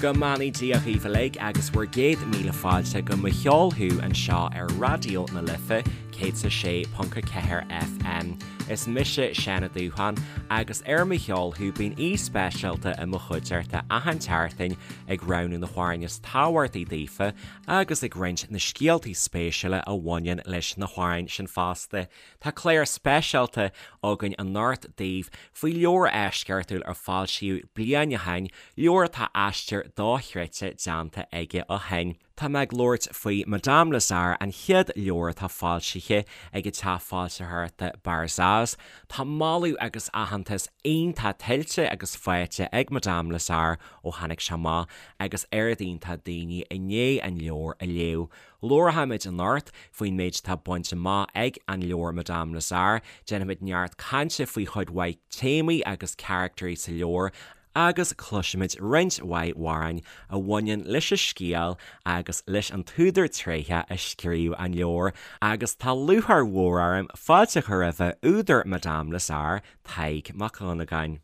Go mbeannaí Dia dhaoibh uilig agus bhur gcéad míle fáilte go Mo Cheol Thú anseo ar Raidió na Life 106.4 FM. Is mise Seán Ó Dúcháin agus ar Mo Cheol Thú bíonn aoi speisialta i mo chuideachta achan tseachtain ag roghnú na hamhráin is tábhachtaí daofa agus ag roinnt na scéaltaí spéisiúla a bhaineann leis na hamhráin sin fosta. Tá clár speisialta againn anocht daoibh faoi leabhar eisceachtúil a foilsíodh bliain ó shin, leabhar atá aistear dochreidte déanta aige ó shin. Tá mé ag labhairt faoi Madame Lazare, an chéad leabhar atá foilsithe ag an teach foilsitheoireachta Barzaz. Tá moladh agus aitheantas iontach tuillte agus faighte ag Madame Lazare ó tháinig sé amach agus oiread iontach daoine i ndiaidh an leabhar a léamh. Labharfaimid anocht faoin méid atá bainte amach ag an leabhar Madame Lazare, déanfaimid neart cainte faoi chuid mhaith téamaí agus caractairí sa leabhar agus cloisfimid roinnt mhaith amhráin a bhaineann leis an scéal agus leis an t-údar tréitheach a scríobh an leabhar. Agus tá lúcháir mhór orm fáilte a chur roimhe údar Madame Lazare, Tadhg Mac Dhonnagáin.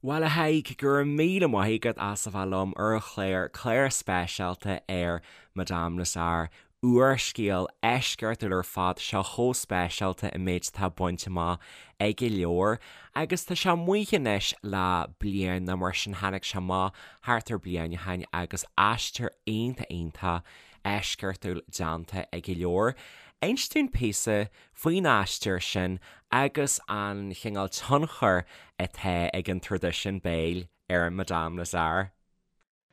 Bhuel, a Thaidhg, go raibh míle maith agat as a bheith liom ar an chlár, clár speisialta ar Madame Lazare, úrscéal eisceachtúil ar fad, seo chomh speisialta an méid atá bainte amach ag an leabhar. Agus tá sé amuigh anois le bliain nó mar sin, tháinig sé amach thart ar bliain ó shin agus aistear iontach iontach eisceachtúil déanta ag an leabhar. Inis dúinn píosa faoin aistear sin agus an chineál tionchair atá ag an traidisiún béil ar Madame Lazare.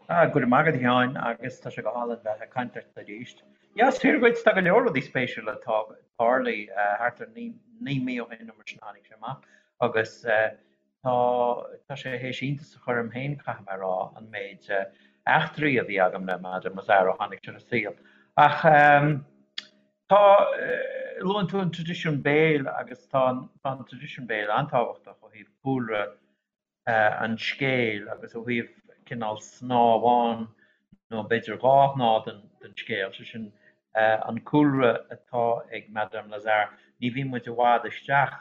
Ah, go raibh maith agat a Sheáin, agus tá sé go hálainn bheith ag caint leat arís. Yeah, is fíor dhuit, tá go leor rudaí spéisiúla tarlaithe thart ar 9 mí ó shin nó mar sin a tháinig sé amach agus tá tá sé théis iontas a chur orm féin, caithfidh mé a rá, an méid eachtraí a bhí agam le Madame Lazare ó tháinig sé ar an saol. Ach Tá, luann tú an traidisiún béil agus tá an traidisiún béil an-tábhachtach ó thaobh cúlra an scéil agus ó thaobh cineál snáth amháin nó b'fhéidir dhá shnáth den scéal, sé sin an cúlra atá ag Madame Lazare. Ní bhíonn muid i bhfad isteach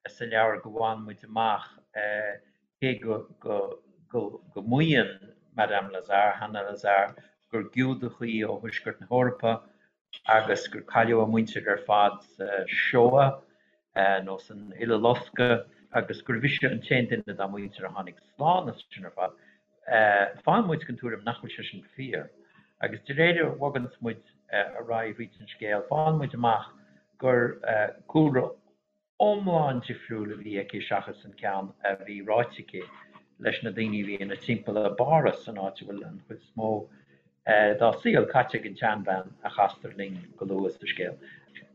sa leabhar go bhfaigheann muid amach cé go go maíonn Madame Lazare, Hannah Lazare, gur Giúdach í ó Thuaisceart na hEorpa agus gur cailleadh a muintir ar fad sa Shoah nó san Uileloscadh agus gurbh ise an t-aon duine dá muintir a tháinig slán as sin ar fad. Faigheann muid den tuairim nach bhfuil sé sin fíor. Agus de réir a bhoganns muid ar aghaidh thríd an scéal, faigheann muid amach gur cúlra iomlán difriúil a bhí aici seachas an ceann a bhí ráite aici leis na daoine a bhí ina timpeall i bPáras, an áit a bhfuil an chuid is mó dá saol caite ag an tseanbhean a chastar linn go luath sa scéal.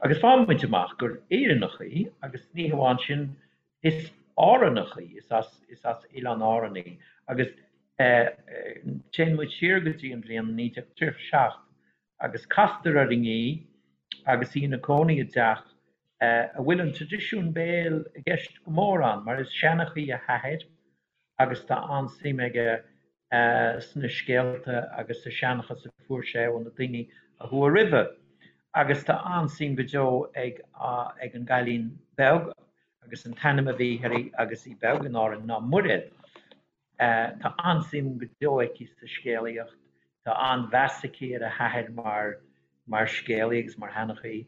Agus faigheann muid amach gur Éireannach í, agus ní hamháin sin, is Árannach í, is as is as Oileáin Árann í. Agus téann muid siar go dtí an bhliain 1937 agus castar orainn í agus í ina cónaí i dteach a bhfuil an traidisiún béil i gceist go mór ann, mar is seanchaí a hathair agus tá an-suim aige sna scéalta agus sa seanchas a fuair sé ó na daoine a chuaigh roimhe. Agus tá an-suim go deo ag ag an gcailín beag, agus an t-ainm a bhí uirthi agus í beag in Árainn ná Muiréad. Tá an-suim go deo aici sa scéalaíocht, tá an-mheas aici ar a hathair mar mar scéalaí agus mar sheanchaí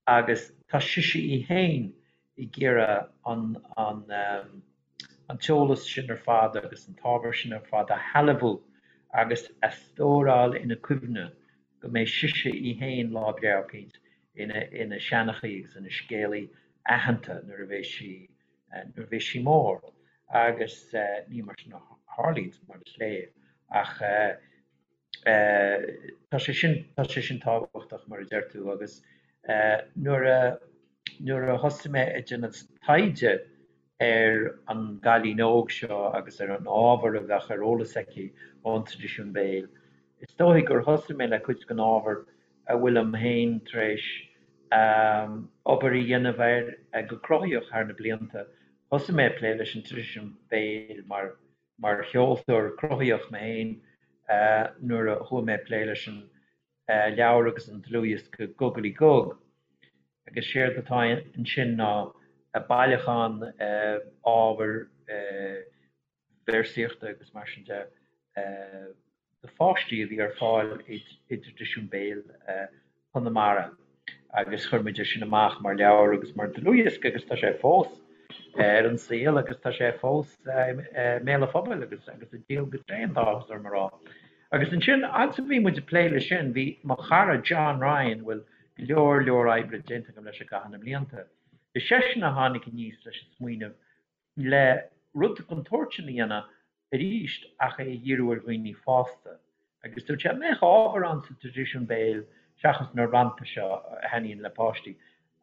agus tá sise í féin ag iarraidh an an an t-eolas sin ar fad agus an t-ábhar sin ar fad a shealbhú agus a stóráil ina cuimhne go mbeidh sise í féin lá breá eicínt ina ina seanchaí agus ina scéalaí aitheanta nuair a bheidh sí nuair a bheidh sí mór agus ní mar sin a tharlaíonns mar is léir ach tá sé sin tá sé sin tábhachtach mar a deir tú agus nuair a nuair a thosaigh mé ag déanamh taighde ar an gcailín óg seo agus ar an ábhar a bheadh ar eolas aici ón traidisiún béil, is dóigh gur thosaigh mé le cuid den ábhar a bhfuilim féin tar éis obair a dhéanamh air go cruthaitheach thar na blianta. Thosaigh mé ag plé leis an traidisiún béil mar mar cheoltóir cruthaitheach mé féin nuair a chuaigh mé ag plé leis an leabhar agus an dlúthdhiosca Gugalaí Gug. Agus séard atá ansin ná bailiúchán ábhair véarsaíochta agus mar sin de. do pháistí a bhí ar fáil i dtraidisiún béil Chonamara agus chuir muid é sin amach mar leabhar agus mar dlúthdhiosca agus tá sé fós ar an saol agus tá sé fós i mbéal an phobail agus agus ag díol go tréan, tá áthas orm a rá. Agus ansin, fhad is a bhí muid ag plé leis sin, bhí mo chara John Ryan, a bhfuil go leor leor oibre déanta agam leis i gcaitheamh na mblianta, is seisean a tháinig aníos leis an smaoineamh le rud den tsórt sin a dhéanamh arís ach é a dhíriú ar dhaoine fásta. Agus dúirt sé, an mbeadh ábhar ann sa traidisiún béil, seachas na rannta seo a thaitníonn le páistí,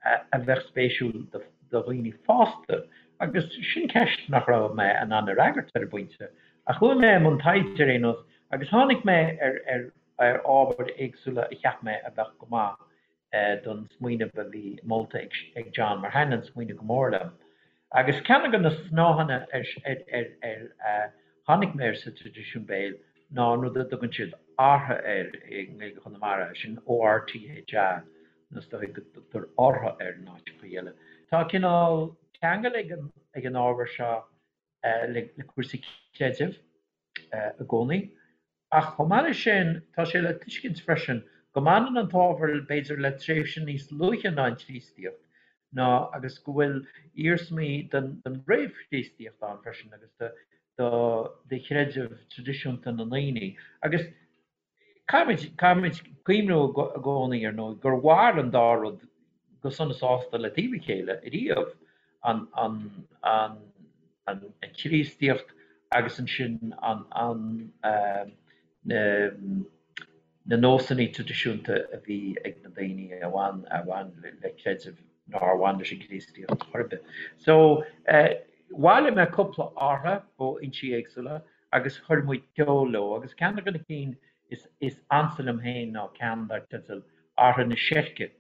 a bheadh spéisiúil do dhaoine fásta? Agus sin ceist nach raibh mé in ann a fhreagairt ar an bpointe. Ach chuaigh mé i mbun taighde ar aon nós agus tháinig mé ar ar ábhair éagsúla a cheap mé a bheadh go maith don smaoineamh a bhí molta ag John, mar thaitin an smaoineamh go mór liom. Agus ceann de na snáitheanna ar tháinig mé air sa traidisiún béil ná an rud a dtugann siad 'ortha' air i nGaeilge Chonamara, sin O-R-T-H-A, nó is dóigh go dtugtar 'orthu' air in áiteacha eile. Tá cineál ceangal ag an ábhar seo le cúrsaí creidimh i gcónaí. Ach chomh maith leis sin, tá sé le tuiscint freisin go mbaineann an t-ábhar b'fhéidir le tréimhse níos luaithe ná an Chríostaíocht, ná agus go bhfuil iarsmaí den réamh-Chríostaíocht ann freisin agus de chreideamh traidisiúnta na ndaoine. Agus caithfimid, caithfimid cuimhniú i gcónaí, ar ndóigh, gur mhair an dá rud go sona sásta le taobh a chéile ariamh, an, an, an, an Chríostaíocht agus ansin an, an, na, na nósanna traidisiúnta a bhí ag na daoine a bhain, a bhain le creideamh nár bhain leis an gCríostaíocht chor ar bith. So, bhailigh mé cúpla ortha ó fhoinsí éagsúla agus chuir muid ceol leo agus ceann de na cinn is, is ansa liom féin ná ceann dar teideal Ortha na Seirce.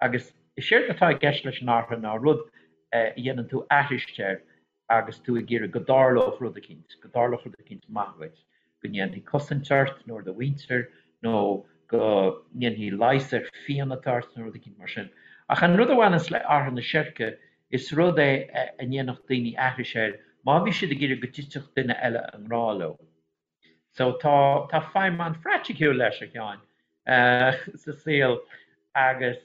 Agus is éard atá i gceist leis an ortha ná rud a dhéanann tú aithris air agus tú ag iarraidh go dtarlódh rud eicínt, go dtarlódh rud eicínt maith dhuit, go ndéanfaí cosaint ort nó ar do mhuintir nó go ndéanfaí leigheas ar phian atá ort nó rud eicínt mar sin. Ach an rud a bhaineanns le ortha na seirce, is rud é a ndéanfadh daoine aithris air má bhí siad ag iarraidh go dtitfeadh duine eile i ngrá leo. So tá, tá feidhm an-phraiticiúil leis, a Sheáin, sa saol agus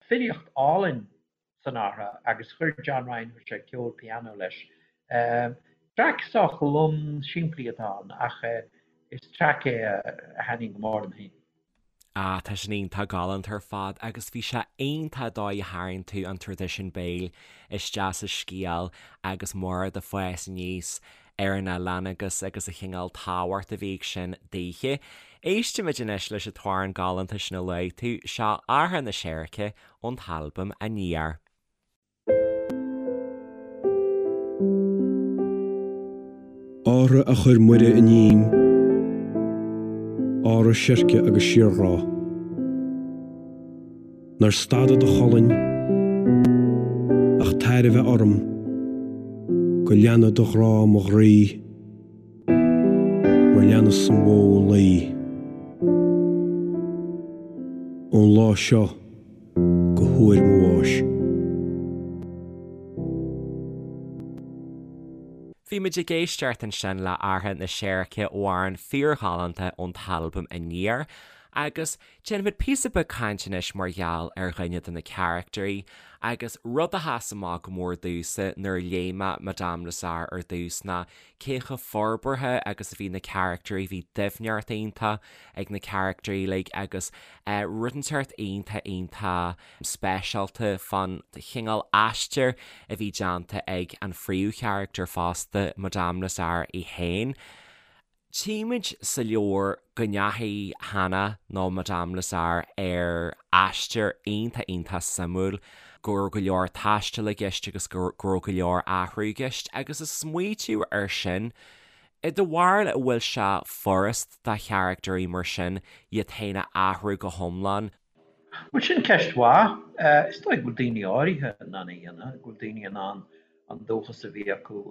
filíocht álainn san ortha agus chuir John Ryan, chuir sé ceol pianó leis. Traic sách lom simplí atá ann ach is traic é a thaitníonn go mór liom féin. Ah, tá sin iontach galánta ar fad agus bhí sé iontach an dóigh a tharraing tú an traidisiún béil isteach sa scéal agus Máire ag fás aníos ar an oileán agus agus an chineál tábhacht a bhí ag sin daoithe. Éistimid anois leis an t-amhrán galánta sin a luaigh tú, seo Ortha na Seirce ón t-albam Aniar. Ortha a chuir Muire iním, ortha seirce agus síorghrá. Nár stada do cholainn ach tairbhe orm go leana do ghrá mo ghroí mar leanas an bhó an lao. Ón lá seo go huair mo bháis. Bhí muid ag éisteacht ansin le Ortha na Seirce, amhrán fíorghalánta ón t-albam Aniar, agus déanfaimid píosa beag cainte anois mar gheall ar dhuine de na caractairí, agus rud a sheas amach go mór domhsa nuair a léigh mé Madame Lazare ar dtús ná cé chomh forbartha agus a bhí na caractairí, bhí doimhneacht iontach ag na caractairí uilig agus rud inteacht iontach iontach speisialta fán chineál aistir a bhí déanta ag an phríomhcharachtar fosta, Madame Lazare í féin. Tchímid sa leabhar go ndeachaigh Hannah nó Madame Lazare ar aistear iontach iontach suimiúil, go raibh go leor taistil i gceist agus go raibh go leor athrú i gceist agus ag smaoitiú air sin, i do bharúil an bhfuil sé furast do charactairí mar sin iad féin a athrú go hiomlán? Bhuel, sin ceist mhaith. Is dóigh go bhfuil daoine áirithe in ann é a dhéanamh, go bhfuil daoine in ann an dúchas a bhí acu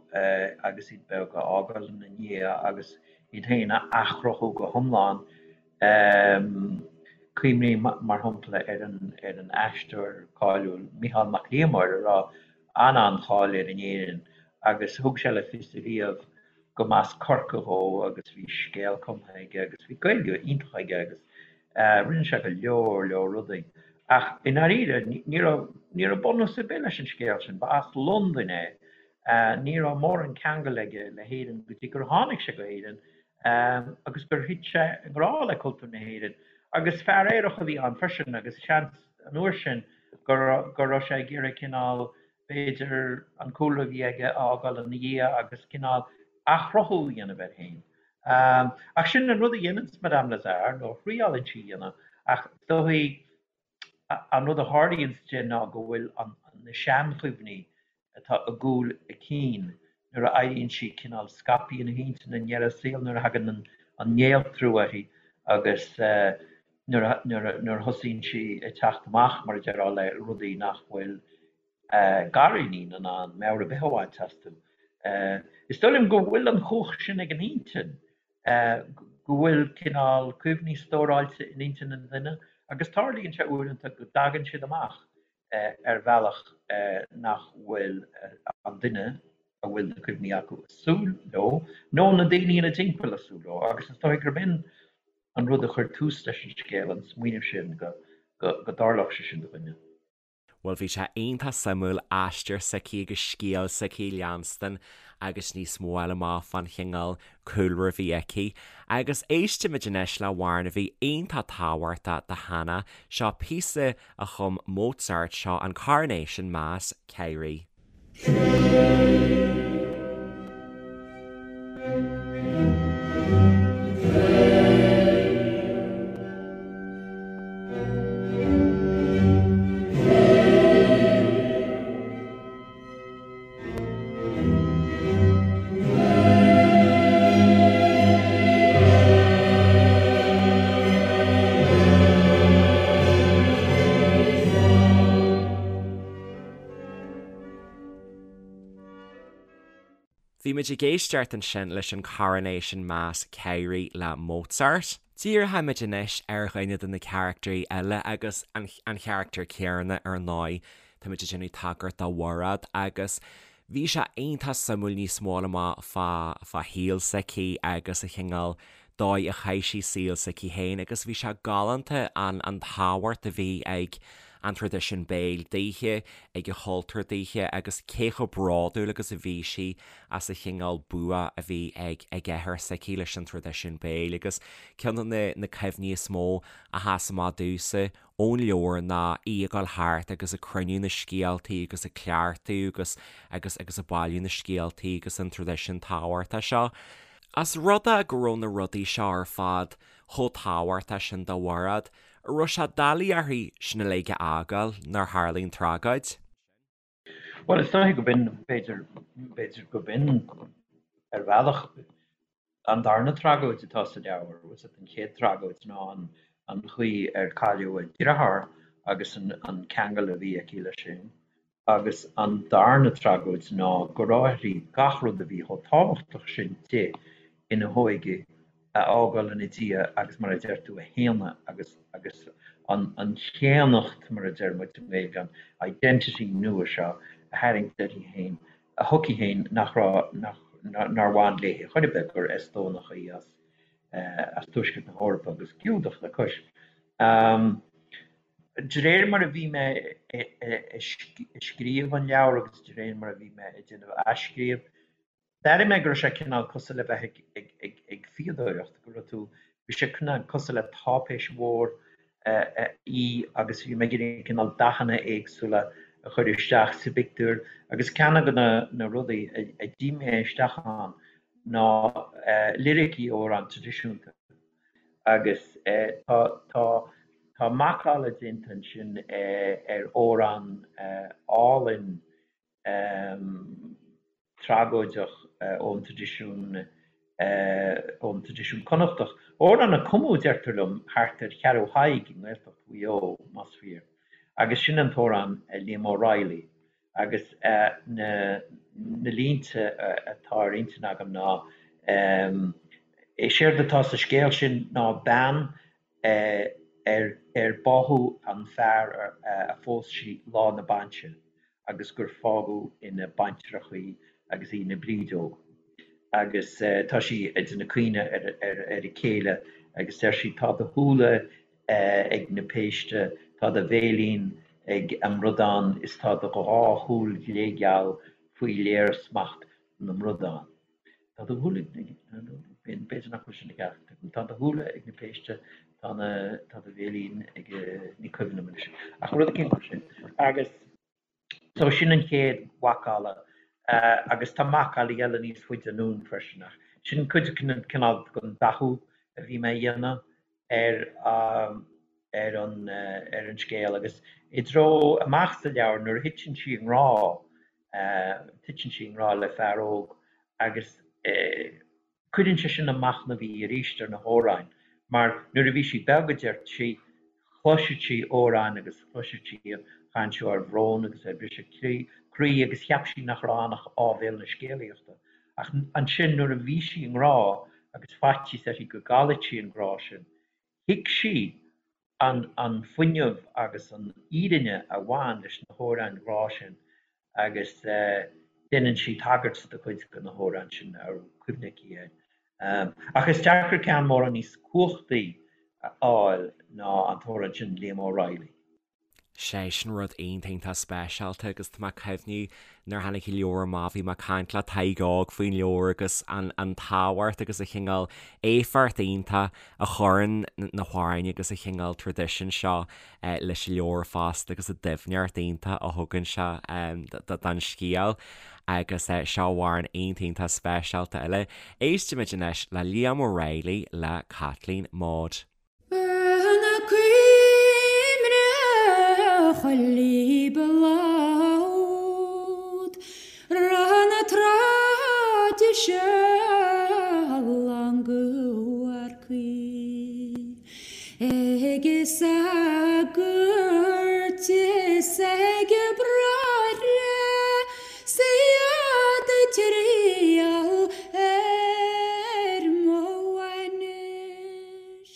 agus iad beag a fhágáil ina ndiaidh agus iad féin a athchruthú go hiomlán. Cuimhním, mar shampla, ar an aisteoir cáiliúil Micheál Mac Liammóir a raibh an-an-cháil air in Éirinn agus thug sé le fios ariamh go. Go mb'as Corcaigh dhó agus bhí scéal cumtha aige agus bhí Gaeilge iontach aige agus rinne sé go leor leor rudaí. Ach i ndáiríre ní raibh ní raibh bunús ar bith leis an scéal sin. Ba as Londain é. Ní raibh mórán ceangal aige le hÉirinn go dtí gur tháinig sé go hÉirinn agus gur thit sé i ngrá le cultúr na hÉireann. Agus fear aerach a bhí ann freisin agus seans an uair sin go raibh sé ag iarraidh cineál b'fhéidir, an cúlra a bhí aige a fhágáil ina dhiaidh agus cineál athchruthú a dhéanamh air féin. Ach sin an rud a dhéananns Madame Lazare, nó a thriálann sí a dhéanamh, ach is dóichí an rud a tharlaíonns di ná go bhfuil na seanchuimhní atá i gcúl a cinn nuair a éiríonn sí cineál scaipthe ina hintinn i ndeireadh a saoil, nuair a thagann an néaltrú uirthi agus nuair a thosaíonn sí ag teacht amach, mar a déarfá, le rudaí nach bhfuil gariníon in ann meabhair ar bith a bhaint astu. Is dóigh liom go bhfuil an chumhacht sin ag an intinn, go bhfuil cineál cuimhní stóráilte in intinn an duine agus tarlaíonn sé uaireanta go dtagann siad amach ar bhealach nach bhfuil an duine a bhfuil na cuimhní acu ag súil leo, nó na daoine ina dtimpeall ag súil leo, agus is dóigh gurb in an rud a chuir tús leis an scéal, an smaoineamh sin go dtarlódh sé sin do dhuine. Bhuel, bhí sé iontach suimiúil aistear s'aici agus scéal s'aici a leanstan agus níos mó a fháil amach fán chineál cúlra a bhí aici. Agus éistfimid anois le hamhrán a bhí iontach tábhachtach do Hannah. Seo píosa a chum Mozart, seo an Coronation Mass, Kyrie. Bhí muid ag éisteacht ansin leis an Coronation Mass Kyrie le Mozart. Díreoimid anois ar dhuine de na carachtarí eile agus an charachtar céanna ar ndóigh. Táimid ag déanamh tagairt do Mhairéad agus bhí sé iontach suimiúil níos mó a fháil amach fá fá shaol s'aici agus an chineál dóigh a chaith sí saol s'aici féin agus bhí sé galánta an an tábhacht a bhí ag an traidisiún béil daoithe, ag an chultúr daoithe agus cé chomh bródúil agus a bhí sí as an chineál bua a bhí ag ag athair s'aici leis an traidisiún béil agus ceann de na na cuimhní is mó a sheas amach domhsa ón leabhar ná í ag dul thart agus ag cruinniú na scéaltaí agus ag cleachtadh agus agus agus ag bailiú na scéaltaí agus an traidisiún tábhachtach seo. As rud é go raibh na rudaí seo ar fad chomh tábhachtach sin do Mhairéad, an raibh sé doiligh uirthi sin uilig a fhágáil nuair a tharlaigh an tragóid. Bhuel, is dóiche go b'in, b'fhéidir, b'fhéidir go b'in ar bhealach an darna tragóid atá sa leabhar. Bhfuil fhios agat, an chéad tragóid ná an chaoi ar cailleadh a deartháir agus an ceangal a bhí aici leis sin. Agus an darna tragóid ná go raibh uirthi gach rud a bhí chomh tábhachtach sin di ina hóige a fhágáil ina diaidh agus mar a deir tú a shéanadh agus agus an an chéannacht mar a deir muid i nGaeilge an identity nua seo a tharraingt uirthi féin a chuici féin nach raibh nach nár bhain léi chor ar bith gur Eastónach í as as Tuaisceart na hEorpa agus Giúdach le cois. De réir mar a bhí mé ag scríobh an leabhair agus de réir mar a bhí mé ag déanamh athscríobh, d'airigh mé go raibh sé cineál cosúil le bheith ag fíodóireacht, go raibh tú, bhí sé cineál cosúil le táipéis mhór í agus bhí mé ag iarraidh cineál dathanna éagsúla a chur isteach sa bpictiúr agus ceann de na rudaí a d'ith mé isteach ann ná liricí amhrán traidisiúnta. Agus tá tá tá macalla déanta ansin ar amhrán álainn tragóideach ón traidisiún ón traidisiún Connachtach. Amhrán a cumadh, deirtear liom, thart ar Cheathrú Thaidhg i nGaeltacht Mhaigh Eo, más fíor. Agus sin an t-amhrán Liam O'Reilly. Agus na línte atá ar intinn agam ná, is éard atá sa scéal sin ná bean ar ar báthadh an fear a phós sí lá na bainse agus gur fágadh ina baintreach í agus í ina brídeog. Agus tá sí ag déanamh caoineadh ar a céile agus deir sí, 'Tá do shúile ag na péiste, tá do bhéilín ag an mbradán is tá do dhá shúil ghlégheal faoi léirsmacht na mbradán. Tá do shúile ag na, b'fhéidir nach bhfuil sin i gceart agam. Tá do shúile ag na péiste, tá na, tá do bhéilín ag, ní cuimhin liom anois. Ach rud eicínt mar sin. Agus so sin an chéad mhacalla. Agus tá macallaí eile níos faide anonn freisin ach sin cuid den cineál den dathú a bhí mé a dhéanamh ar ar an ar an scéal. Agus i dtreo amach sa leabhar nuair a thiteann sí i ngrá, Titeann sí i ngrá le fear óg agus cuireann sé sin ag machnamh í arís ar na hamhráin mar nuair a bhí sí beag, a deir sí, chloiseadh sí amhráin agus chloiseadh sí an chaint seo ar bhrón agus ar bhriseadh croí agus cheap sí nach raibh ann ach áibhéil na scéalaíochta. Ach ansin nuair a bhí sí i ngrá agus faitíos uirthi go gcaillfeadh sí an grá sin, thuig sí an fuinneamh agus an fhírinne a bhain leis na hamhráin ghrá sin agus déanann sí tagairt do chuid de na hamhráin sin a raibh cuimhne aici air. Ach is deacair ceann mórán níos cumhachtaí a fháil ná an t-amhrán sin Liam O'Reilly. Sé sin rud iontach iontach speisialta agus tá mé ag cuimhniú nuair a tháinig an leabhar amach bhí mé ag caint le Tadhg Óg faoin leabhar agus an an tábhacht agus an chineál éifeacht iontach a chuireann na hamhráin agus an chineál traidisiún seo leis an leabhar fosta agus an doimhneacht iontach a thugann sé don scéal agus seo amhrán iontach iontach speisialta eile. Éistimid anois le Liam O'Reilly le Caitlín Maude. Na cuimhne chuile bhláth na traidisiún go Ag sagairt is ag bráithre 's iad ag triall ar mo bhainis.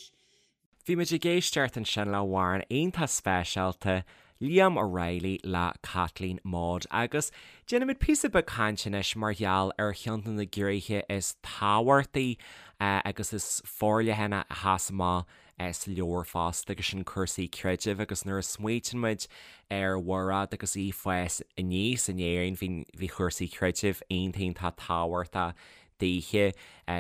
Bhí muid ag éisteacht ansin le hamhrán iontach speisialta, Liam O'Reilly le Caitlín Maude agus déanfaimid píosa beag cainte anois mar gheall ar cheann de na gnéithe is tábhachtaí agus is forleithne a sheas amach sa leabhar fosta agus sin cúrsaí creidimh agus nuair a smaoitíonn muid ar Mhairéad agus í ag fás aníos in Éirinn bhí bhí cúrsaí creidimh iontach iontach tábhachtach daoithe.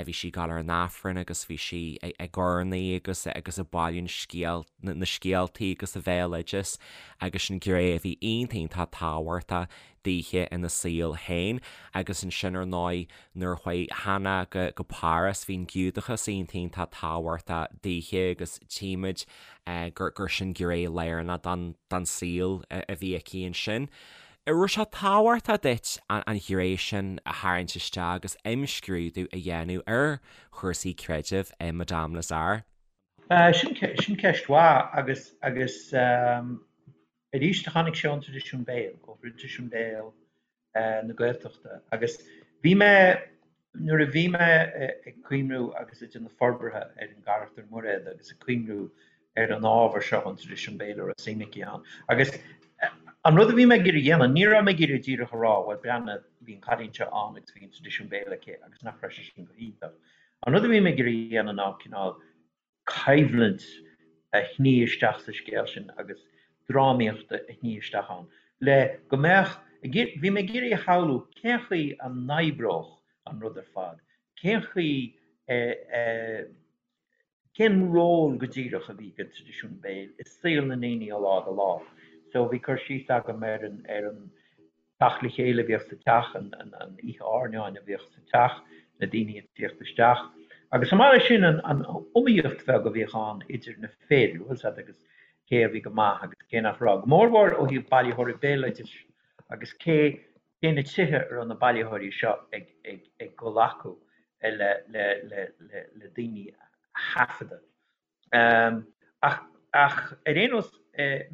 Bhí sí ag dul ar an Aifreann agus bhí sí ag urnaí agus agus ag bailiú scéal na scéaltaí agus an bhéaloideas agus sin gné a bhí iontach iontach tábhachtach daoithe ina saol féin agus ansin ar ndóigh nuair a chuaigh Hannah go go Páras bhí an Giúdachas iontach iontach tábhachtach daoithe agus tchímid gur gur sin gné lárnach don don saol a bhí aici ansin. An raibh sé tábhachtach duit an ghné sin a tharraingt isteach agus imscrúdú a dhéanamh ar chúrsaí creidimh i Madame Lazare? Sin ceist mhaith agus agus arís tháinig sé ón traidisiún béil, ó thraidisiún béil na Gaeltachta agus bhí mé, nuair a bhí mé ag cuimhniú agus ag déanamh forbartha ar an gcarachtar Muiréad agus ag cuimhniú ar an ábhar seo, an traidisiún béil a raibh suim aici ann. Agus an rud a bhí mé ag iarraidh a dhéanamh, ní raibh mé ag iarraidh díreach a rá, bhuel, breathnaigh, bhí an cailín seo ann agus bhí an traidisiún béil aici agus nach raibh sé sin go hiontach. An rud a bhí mé ag iarraidh a dhéanamh ná cineál coimhlint a shní isteach sa scéal sin agus drámaíocht a shní isteach ann le go mbeadh, bhí mé ag iarraidh a shamhlú cén chaoi a n-oibreodh an rud ar fad, cén chaoi a, Cén ról go díreach a bhí ag an traidisiún béil i saol na ndaoine ó lá go lá? So bhí cur síos agam ar an ar an teacht le chéile a bhíodh sa teach, an an oíche airneáin a bhíodh sa teach, na daoine ag tíocht isteach. Agus chomh maith leis sin an an iomaíocht bheag a bhíodh ann idir na fir, bhfuil 's a'd, agus cé a bhí go maith agus cé nach raibh. Go mórmhór ó thaobh bailitheoirí béaloidis agus cé cé na tithe a raibh na bailitheoirí seo ag ag dul acu le le le le le daoine a thaifeadadh. Ach ach ar aon nós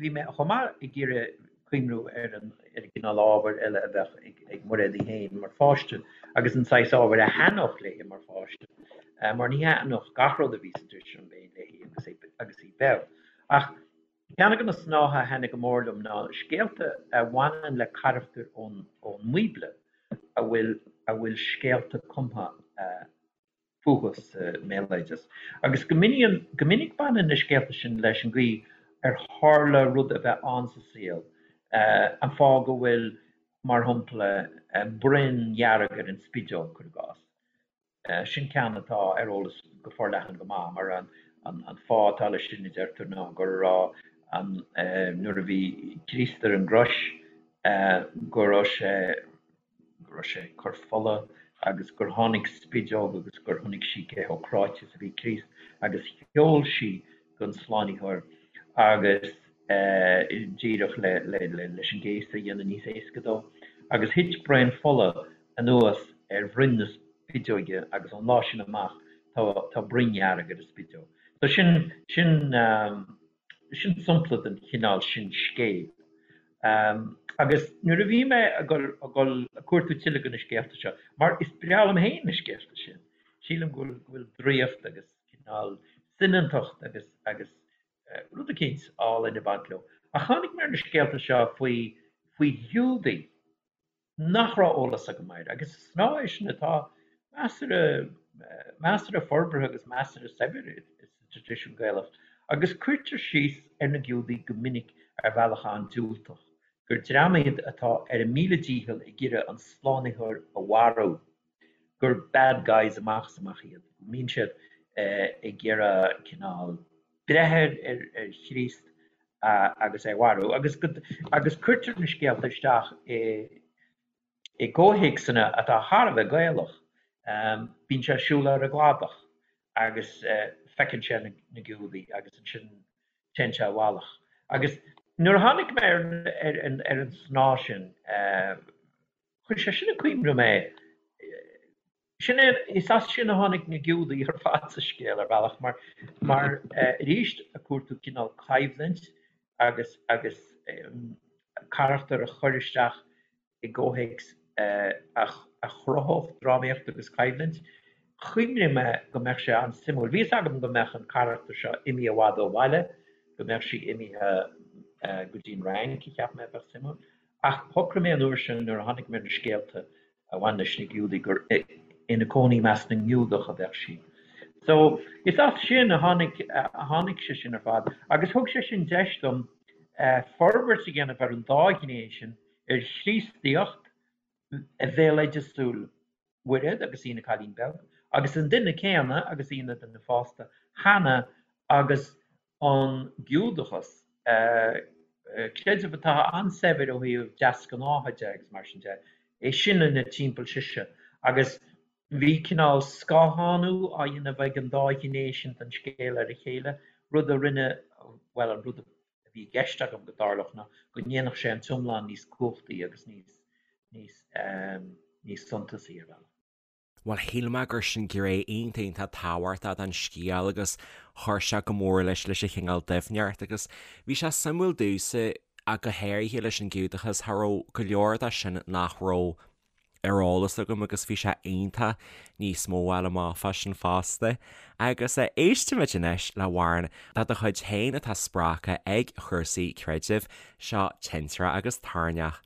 bhí mé chomh maith ag iarraidh cuimhniú ar an ar an gcineál ábhair eile a bheadh ag ag Muiréad í féin mar pháiste agus an saghas ábhair a thaitneodh léi mar pháiste mar ní thaitneodh gach rud a bhí sa traidisiún béil léi agus agus í beag. Ach Ceann de na snátha a thaitnigh go mór liom ná scéalta a bhaineann le carachtair ón mBíobla a bhfuil a bhfuil scéalta cumtha. fúthu sa mbéaloideas. Agus go minic baineann na scéalta sin leis an gcaoi ar tharla rud a bheith ann sa saol, an fáth go bhfuil, mar shampla, broinn dhearg ar an spideog, cuir i gcás. Sin ceann atá ar eolas go forleathan go maith, mar an fáth atá leis sin, a deirtear, ná go raibh an, nuair a bhí Críost ar an gcrois, go raibh sé, go raibh sé ag cur fola agus gur tháinig spideog agus gur chonaic sí cé chomh cráite is a bhí Críost agus sheol sí don Slánaitheoir agus díreach leis an gcéasadh a dhéanamh níos éasca dó. Agus thit braon fola anuas ar bhroinn na spideoige agus ón lá sin amach tá broinn dhearg ar an spideog. So sin, sin, sin sampla den chineál sin scéil. Agus nuair a bhí mé ag dul, ag dul ag cuartú tuilleadh de na scéalta seo, mar is breá liom féin na scéalta sin, sílim go bhfuil, go bhfuil draíocht agus cineál soineantacht agus, agus rud eicínt álainn ag baint leo. Ach tháinig mé ar na scéalta seo faoi, faoi Ghiúdaigh nach raibh eolas agam air, agus is snáth é sin atá measartha, measartha forbartha agus measartha saibhir sa traidisiún Gaelach, agus cuirtear síos ar na Giúdaigh go minic ar bhealach an-diúltach, gur dream iad atá ar a míle dícheall ag iarraidh an Slánaitheoir a mharú, gur bad guys amach is amach iad, go mbíonn siad ag iarraidh cineál breith ar Chríost agus é a mharú, agus agus cuirtear na scéalta isteach i i gcomhthéacsanna atá thar a bheith Gaelach. Bíonn sé ag siúl ar an gcladach agus feiceann sé na Giúdaigh agus ansin téann sé i bhfalach. Agus nuair a tháinig mé ar ar an snáth sin, chuir sé sin ag cuimhneamh mé, Sin é, is as sin a tháinig na Giúdaigh ar fad sa scéal ar bhealach mar, mar arís ag cuartú cineál coimhlint agus, agus carachtar a chur isteach i gcomhthéacs a chruthódh drámaíocht agus coimhlint. Chuimhnigh mé go mbeadh sé an-suimiúil. Bhí fhios agam go mbeadh an carachtar seo imithe i bhfad ó bhaile, go mbeadh sí imithe go dtí an Fhrainc, a cheap mé a bheadh suimiúil. Ach shocraigh mé an uair sin nuair a tháinig mé ar na scéalta a bhain leis na Giúdaigh gur ina cónaí i measc na nGiúdach a bheadh sí. So, is as sin a tháinig, a tháinig sé sin ar fad agus thug sé sin deis dom forbairt a dhéanamh ar an dá ghné sin, ar Chríostaíocht bhéaloideasúil Mhairéad agus í ina cailín beag, agus an duine céanna agus í ina duine fásta cheana agus an Giúdachas, creideamh atá an-saibhir ó thaobh deasghnátha de agus mar sin de, é sin ina timpeall sise. Agus bhí cineál scáthánú á dhéanamh ag an dá ghné sin den scéal ar a chéile, rud a rinne, bhuel, an rud a bhí i gceist agam go dtarlódh ná go ndéanfadh sé an t-iomlán níos cumhachtaí agus níos, níos, níos suntasaí ar bhealach. Bhuel, shíl mé gur sin gné iontach iontach tábhachtach den scéal agus chuir sé go mór leis leis an chineál doimhneacht agus bhí sé suimiúil domhsa ach go háirithe leis an Giúdachas, cha raibh go leor de sin nach raibh ar eolas agam agus bhí sé iontach níos mó a fháil amach fá sin fosta. Agus éistfimid anois le hamhrán de do chuid féin atá spreagtha ag chúrsaí creidimh, seo Tintreach agus Toirneach.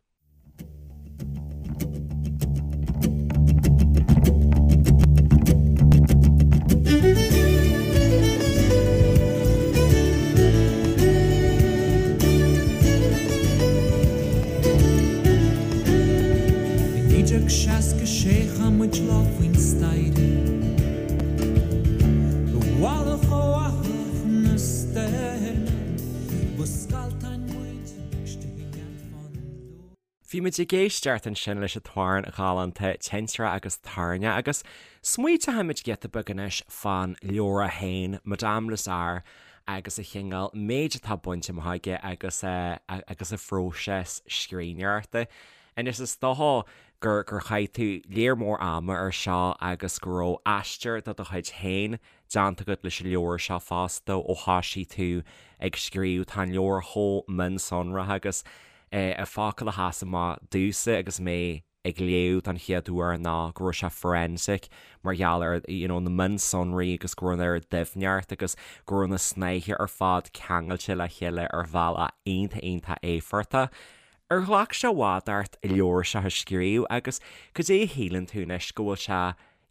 I 1966 chaith muid lá faoin staighre I bhfalach ó fhathach na stoirme Ba scalltáin muid istigh i ngeanfán dúinn. Bhí muid ag éisteacht ansin leis an t-amhrán galánta Tintreach agus Toirneach agus smaointeoimid giota beag anois fán leabhar féin, Madame Lazare agus an chineál méid atá bainte amach aige agus agus a phróiseas scríbhneoireachta. Anois is dócha gur gur chaith tú léar mór ama ar seo agus go raibh aistear de do chuid féin déanta agat leis an leabhar seo fosta ó thoisigh tú ag scríobh. Tá an leabhar chomh mionsonraithe agus an focal a sheas amach domhsa agus mé ag léamh don chéad uair ná go raibh sé forensic mar gheall ar you know na mionsonraí agus go raibh an oiread doimhneacht agus go raibh na snáithe ar fad ceangailte le chéile ar bhealach iontach iontach éifeachtach. Ar ghlac sé i bhfad ort an leabhar seo a scríobh agus cad é a shíleann tú anois go bhfuil sé.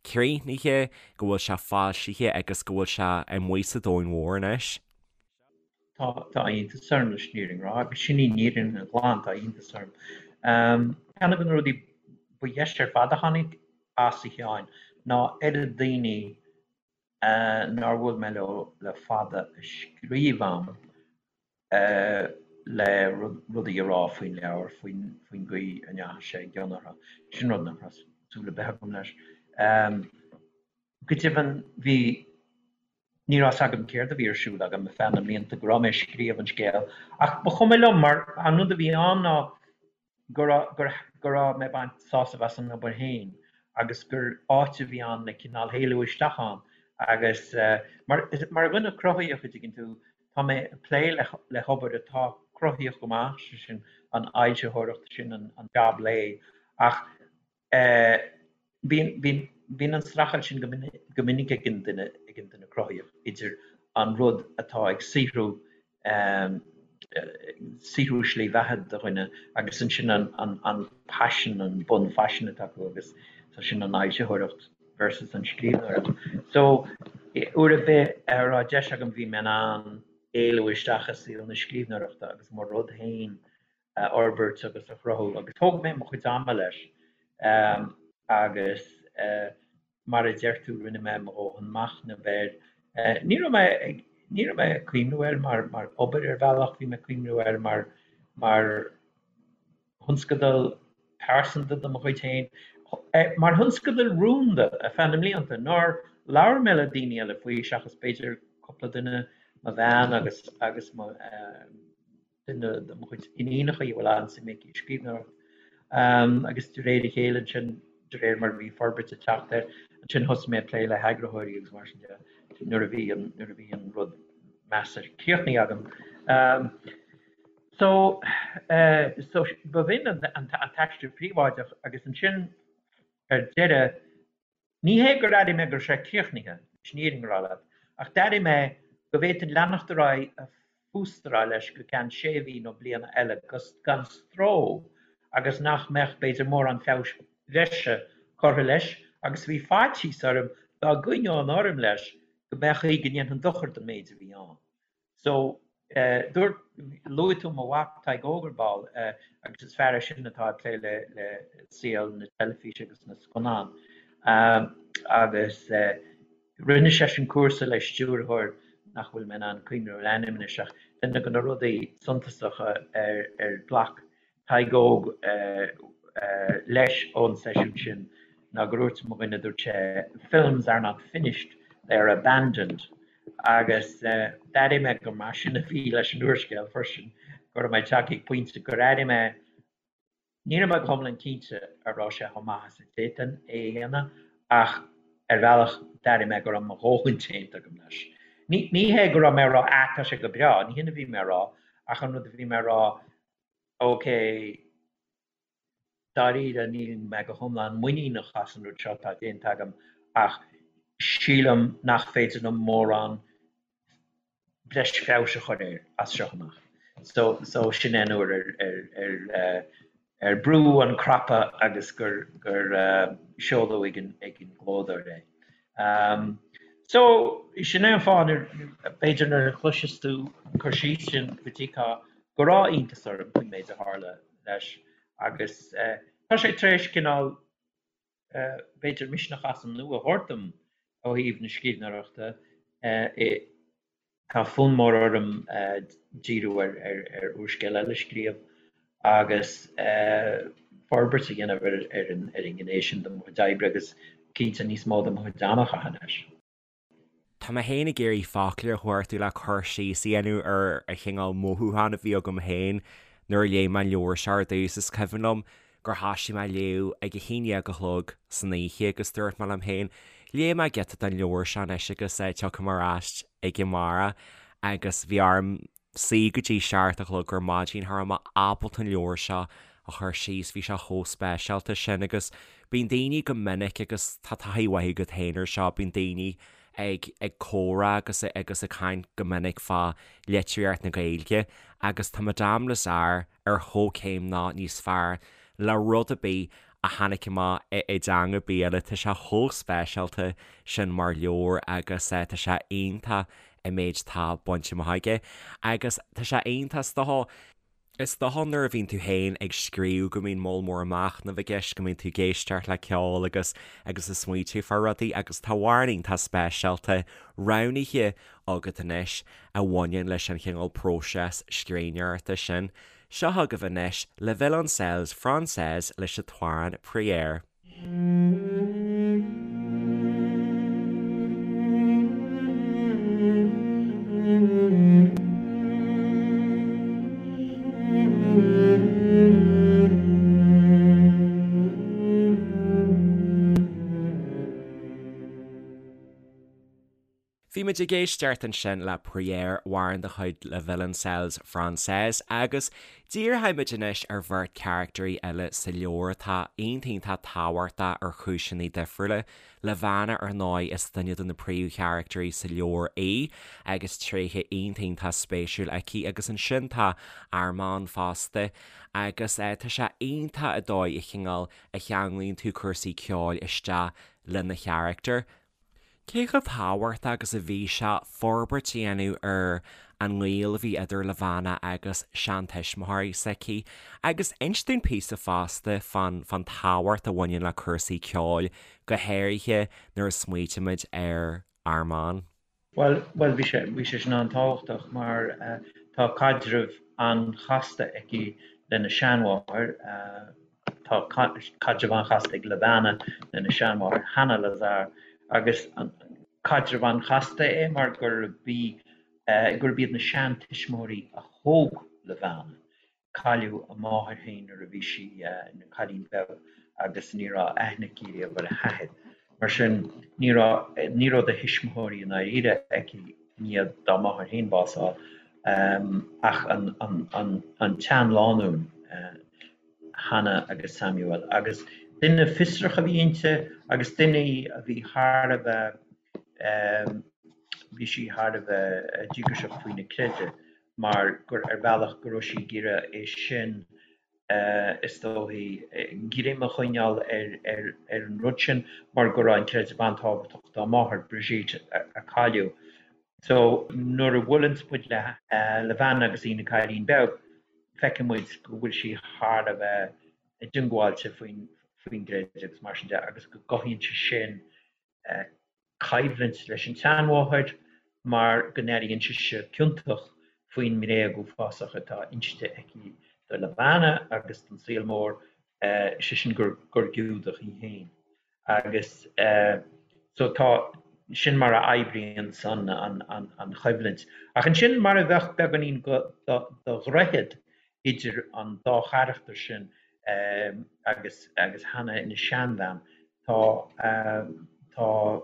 críochnaithe, go bhfuil sé foilsithe agus go bhfuil sé amuigh sa domhan mhór anois? Tá, tá iontas orm leis an fhírinne a rá, agus sin í an fhírinne ghlan, tá iontas orm. Ceann de na rudaí ba dheise ar fad a tháinig as, a Sheáin, ná oiread daoine nár bhuail mé leo le fada a scríobh a'm le rudaí a rá faoin leabhar, faoin gcaoi a ndeachaigh sé i gcion orthu. Sin rud nach raibh súil ar bith agam leis. Go deimhin, bhí, ní raibh 's agam céard a bhí ar siúl agam ar feadh na mblianta go raibh mé ag scríobh an scéil, ach ba chuma liom mar an rud a bhí ann ná go raibh, go raibh mé ag baint sásamh as an obair féin agus gur áit a bhí ann le cineál éalú isteach ann agus mar, mar dhuine cruthaitheach, a dtuigeann tú, tá mé ag plé le, le hobair atá cruthaitheach go maith, sé sin an fhoilsitheoireacht, sin an jab lae ach Bíonn, bíonn, bíonn an streachailt sin go go minic ag an duine, ag an duine cruthaitheach idir an rud atá ag saothrú, saothrú slí bheatha do dhuine agus ansin an, an, an paisean, an bunphaisean atá acu agus so sin an fhoilsitheoireacht versus an scríbhneoireacht. So, uair ar bith a raibh deis agam bhí mé in ann éalú isteach i saol na scríbhneoireachta agus mo rud féin a fhorbairt agus a chruthú agus thóg mé mo chuid ama leis agus mar a deir tú rinne mé mo dhóthain machnaimh air. Ní raibh mé ag, ní raibh mé ag cuimhniú air mar, mar obair ar bhealach, bhí mé ag cuimhniú air mar, mar thionscadal pearsanta de mo chuid féin, mar thionscadal rúnda ar feadh na mblianta nár labhair mé le daoine eile faoi seachas b'fhéidir cúpla duine, mo bhean agus, agus mo. duine de mo chuid iníonacha a bhfuil an-suim aici i scríbhneoireacht. Agus de réir a chéile ansin, de réir mar a bhí forbairt ag teacht air, ansin thosaigh mé ag plé le heagraitheoirí agus mar sin de nuair a bhí an, nuair a bhí an rud measartha críochnaithe agam. So, so b'shin an t-aistear príobháideach agus ansin ar deireadh, Ní hé gur airigh mé go raibh sé críochnaithe, leis an fhírinne a rá leat, ach d'airigh mé go bhféadfainn leanacht ar aghaidh ag fústaráil leis go ceann sé mhí nó bliana eile gan stró agus nach mbeadh, b'fhéidir, mórán feabhais bhreise curtha leis agus bhí faitíos orm dá gcoinneoinn orm leis go mbeadh chaoi go ndéanfainn dochar don méid a bhí ann. So, dúirt, luaigh tú mo mhac Tadhg Óg ar ball, agus is fear é sin atá ag plé le le saol na teilifíse agus na scannán. Agus rinne seisean cúrsa le stiúrthóir nach bhfuil mé in ann cuimhniú ar a ainm anois ach duine de na rudaí suntasacha ar ar ghlac Tadhg Óg leis ón seisiún sin ná gur dhúirt mo dhuine, dúirt sé, 'Films are not finished, they are abandoned' agus d'airigh mé gur mar sin a bhí leis an úrscéal freisin, go raibh mé tagtha ag pointe gur airigh mé, ní raibh mé go hiomlán cinnte an raibh sé chomh maith is a d'fhéadfainn é a dhéanamh ach ar bhealach d'airigh mé go raibh mo dhóthain déanta agam leis. Ní hé go raibh mé ag rá 'ah tá sé go breá', ní hin a bhí mé a rá ach an rud a bhí mé a rá, Ok, dáiríre níl mé go hiomlán muiníneach as an rud seo atá déanta agam ach sílim nach féidir liom mórán breis feabhais a chur air as seo amach. So, so sin é an uair ar, ar, ar, eh, ar brúdh an cnaipe agus gur, gur eh, seoladh ag an, ag an gclódóir é. Um, so, sin é an fáth nuair, b'fhéidir nuair a chloiseas tú an cur síos sin go dtuigfeá go raibh iontas orm faoin méid a tharla leis agus tá sé tar éis cineál, b'fhéidir, misneach as an nua a thabhairt dom ó thaobh na scríbhneoireachta. Tá fonn mór orm díriú ar úrscéal eile a scríobh agus forbairt a dhéanamh ar an ngné sin de mo chuid oibre agus cinnte níos mó de mo chuid ama a chaitheamh leis. Tá mé féin ag iarraidh focla a chuartú le cur síos a dhéanamh ar an chineál mothúchán a bhí agam féin nuair a léigh mé an leabhar seo ar dtús. Is cuimhin liom gur thoisigh mé ag léamh ag a haon dhéag a chlog san oíche agus dúirt mé liom féin, léifidh mé giota den leabhar seo anois agus tiocfaidh mé ar ais chuige amárach agus bhí orm suí go dtí 7 a chlog ar maidin, cha raibh mé ábalta an leabhar seo a chur síos, bhí sé chomh speisialta sin agus bíonn daoine go minic agus tá taithí mhaith agat féin ar seo, bíonn daoine ag ag comhrá agus agus ag caint go minic fá litríocht na Gaeilge agus tá Madame Lazare ar chomhchéim nó níos fearr le rud ar bith. a tháinig amach i dteanga ar bith eile. Tá sé chomh speisialta sin mar leabhar agus tá sé iontach an méid atá bainte amach aige. Agus tá sé iontach is dócha, is dócha nuair a bhíonn tú féin ag scríobh go mbíonn moll mór machnaimh i gceist, go mbíonn tú ag éisteacht le ceol agus agus ag smaoitiú fá rudaí agus tá amhrán iontach speisialta roghnaithe agat anois a bhaineann leis an chineál próiseas scríbhneoireachta sin. Seo chugaibh anois Les Violoncelles Françaises leis an t-amhrán Prière. Bhí muid ag éisteacht ansin le Prière, amhrán de chuid Les Violoncelles Françaises, agus díreoidh muid anois ar bheirt charactairí eile sa leabhar atá iontach iontach tábhachtach ar chúiseanna difriúla. Levana, ar ndóigh, is duine de na príomhcharactairí sa leabhar í agus tréithe iontach iontach spéisiúil aici agus ansin tá Armand fosta agus tá sé iontach an dóigh a chineál a cheanglaíonn tú cúrsaí ceoil isteach lena charachtar. Cé chomh tábhachtach agus a bhí sé forbairt a dhéanamh ar an ngaol a bhí idir Levana agus seantuismitheoirí s'aici? Agus inis dúinn píosa fosta fán fán tábhacht a bhaineann le cúrsaí ceoil, go háirithe nuair a smaoitímid ar Armand. Bhuel, bhuel, bhí sé, bhí sé sin an-tábhachtach mar tá caidreamh an-chasta aici lena seanmháthair, Tá caidreamh an-chasta ag Levana lena seanmháthair Hannah Lazare agus caidreamh an-chasta é mar gurb í gurb iad na seantuismitheoirí a thóg Levana. Cailleadh a máthair féin nuair a bhí sí ina cailín beag agus ní raibh aithne aici riamh ar a hathair. Mar sin ní raibh ní raibh de thuismitheoirí i ndáiríre aici i ndiaidh dá máthair féin bás a fháil ach an an an tseanlánúin. Hannah agus Samuel, agus duine fiosrach a bhí inti agus duine í a bhí thar a bheith, bhí sí thar a bheith díograiseach faoina creideamh mar gur, ar bhealach, go raibh sí ag iarraidh é sin, is dóichí, greim a choinneáil ar, ar, ar an rud sin mar go raibh an creideamh an-tábhachtach dá máthair, Brigitte, a cailleadh. So, nuair a bhuaileanns muid le Levana agus í ina cailín beag, feiceann muid go bhfuil sí thar a bheith diongbháilte faoin gcreideamh agus mar sin de agus go gcothaíonn sé sin coimhlint leis an tseanmháthair mar go n-airíonn sise ciontach faoin mbréag uafásach atá inste aici do Levana agus don saol mór, sé sin gur Giúdach í féin. Agus so tá, sin mar a oibríonn san an choimhlint. Ach ansin mar a bheadh beagáinín de dhroichead idir an dá charachtar sin agus agus Hannah ina seanbhean, tá tá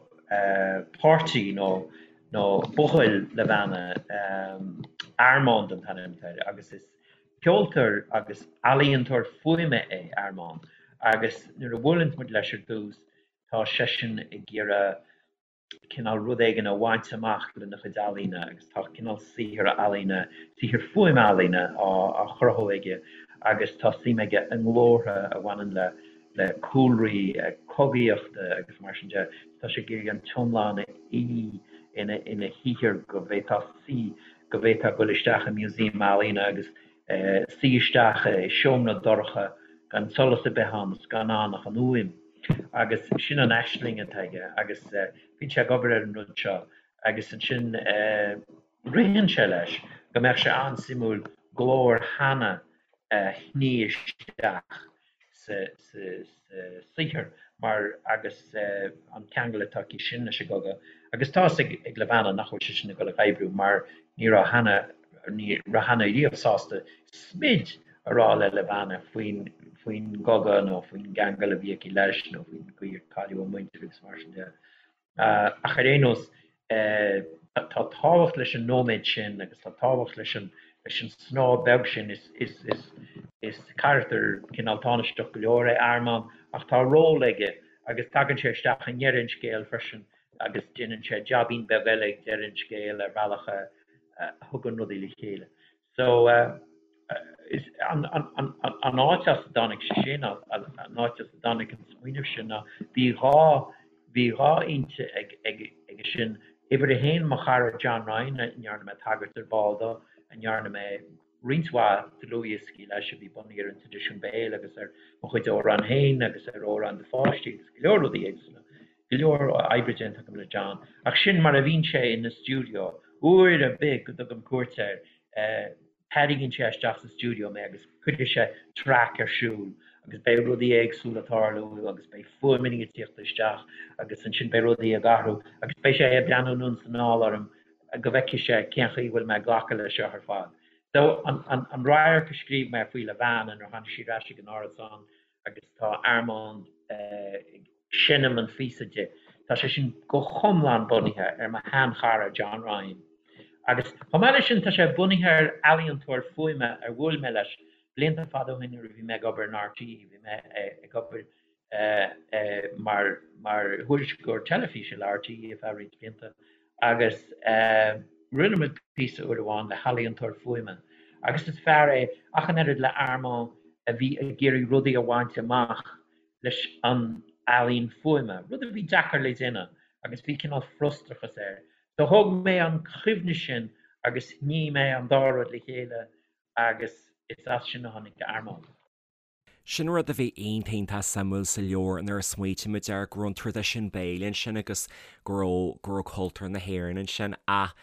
páirtí nó nó buachaill Levana, Armand an t-ainm atá air, agus is Ceoltóir agus ealaíontóir fuaime é Armand agus nuair a bhuaileann muid leis ar dtús tá seisean ag iarraidh cineál rud éigin a bhaint amach lena chuid ealaíne agus tá cineál saothar ealaíne, saothar fuaime ealaíne á chruthú aige agus tá suim aige i nglórtha a bhaineann le le cúlraí cogaíochta agus mar sin de. Tá sé ag iarraidh an t-iomlán a fhí ina ina shaothar go bhféadfá suí go bhféadfá dul isteach i museum ealaíne agus suí isteach i seomra dorcha gan solas ar bith ann is gan ann ach an fhuaim. Agus sin an aisling atá aige agus bíonn sé ag obair ar an rud seo agus ansin ritheann sé leis go mbeadh sé an-suimiúil glór Hannah a shní isteach sa saothar mar agus an ceangal atá aici sin leis an gcogadh agus tá fhios ag Levana nach bhfuil sé sin ag dul ag oibriú mar ní raibh Hannah ní raibh Hannah riamh sásta smid a rá le Levana faoin faoin gcogadh nó faoin gceangal a bhí aici leis nó faoin gcaoi ar cailleadh a muintir agus mar sin de. Ach ar aon nós, tá tábhacht leis an nóiméad sin agus tá tábhacht leis an leis an snáth beag sin. Is carachtar cineál tánaisteach go leor é Armand ach tá ról aige agus tagann sé isteach i ndeireadh an scéil freisin agus déanann sé jaibín beag eile ag deireadh an scéil ar bhealach a thugann rudaí le chéile. So. An áit as a dtáinig sé sin, an áit as a dtáinig an smaoineamh sin ná bhí 2, bhí 2 fhoinse aige sin. Uimhir a haon, mo chara John Ryan, a ndearna mé tagairt ar ball dó, a ndearna mé roinnt mhaith dlúthdhioscaí leis a bhí bunaithe ar an traidisiún béil agus ar mo chuid amhrán féin agus ar amhráin do pháistí agus go leor rudaí éagsúla. Go leor oibre déanta agam le John. Ach sin mar a bhíonn sé ina stiúideo. Uair ar bith go dtugaim cuairt air, tarraingíonn sé isteach sa stiúideo mé agus cuirfidh sé traic ar siúl agus beidh rudaí éagsúla ag tarlú agus beidh fuaimeanna ag tíocht isteach agus ansin beidh rudaí ag athrú agus beidh sé ag breathnú anonn is anall orm go bhfeicfidh sé cén chaoi a bhfuil mé ag glacadh leis seo ar fad. So, an radharc a scríobh mé faoi Levana nuair a tháinig sí ar ais ag an árasán agus tá Armand ag seinm an phíosa di, tá sé sin go hiomlán bunaithe ar mo sheanchara John Ryan. Agus chomh maith leis sin tá sé bunaithe ar ealaíontóir fuaime ar bhuail mé leis blianta fada ó shin nuair a bhí mé ag obair in RTÉ, bhí mé ag obair mar thuairisceoir teilifíse le RTÉ ar feadh roinnt blianta agus rinne muid píosa uair amháin le healaíontóir fuaime agus is fear é ach an oiread le Armand a bhí ag iarraidh rudaí a bhaint amach leis an ealaín fuaime, rud a bhí deacair le déanamh agus bhí cineál frustrachas air. So thóg mé an chuimhne sin agus shnigh mé an dá rud le chéile agus is as sin a tháinig Armand. Sin rud a bhí iontach iontach suimiúil sa leabhar nuair a smaoitigh muid air, go raibh an traidisiún béil ansin agus go raibh, go raibh cultúr na hÉireann ansin ach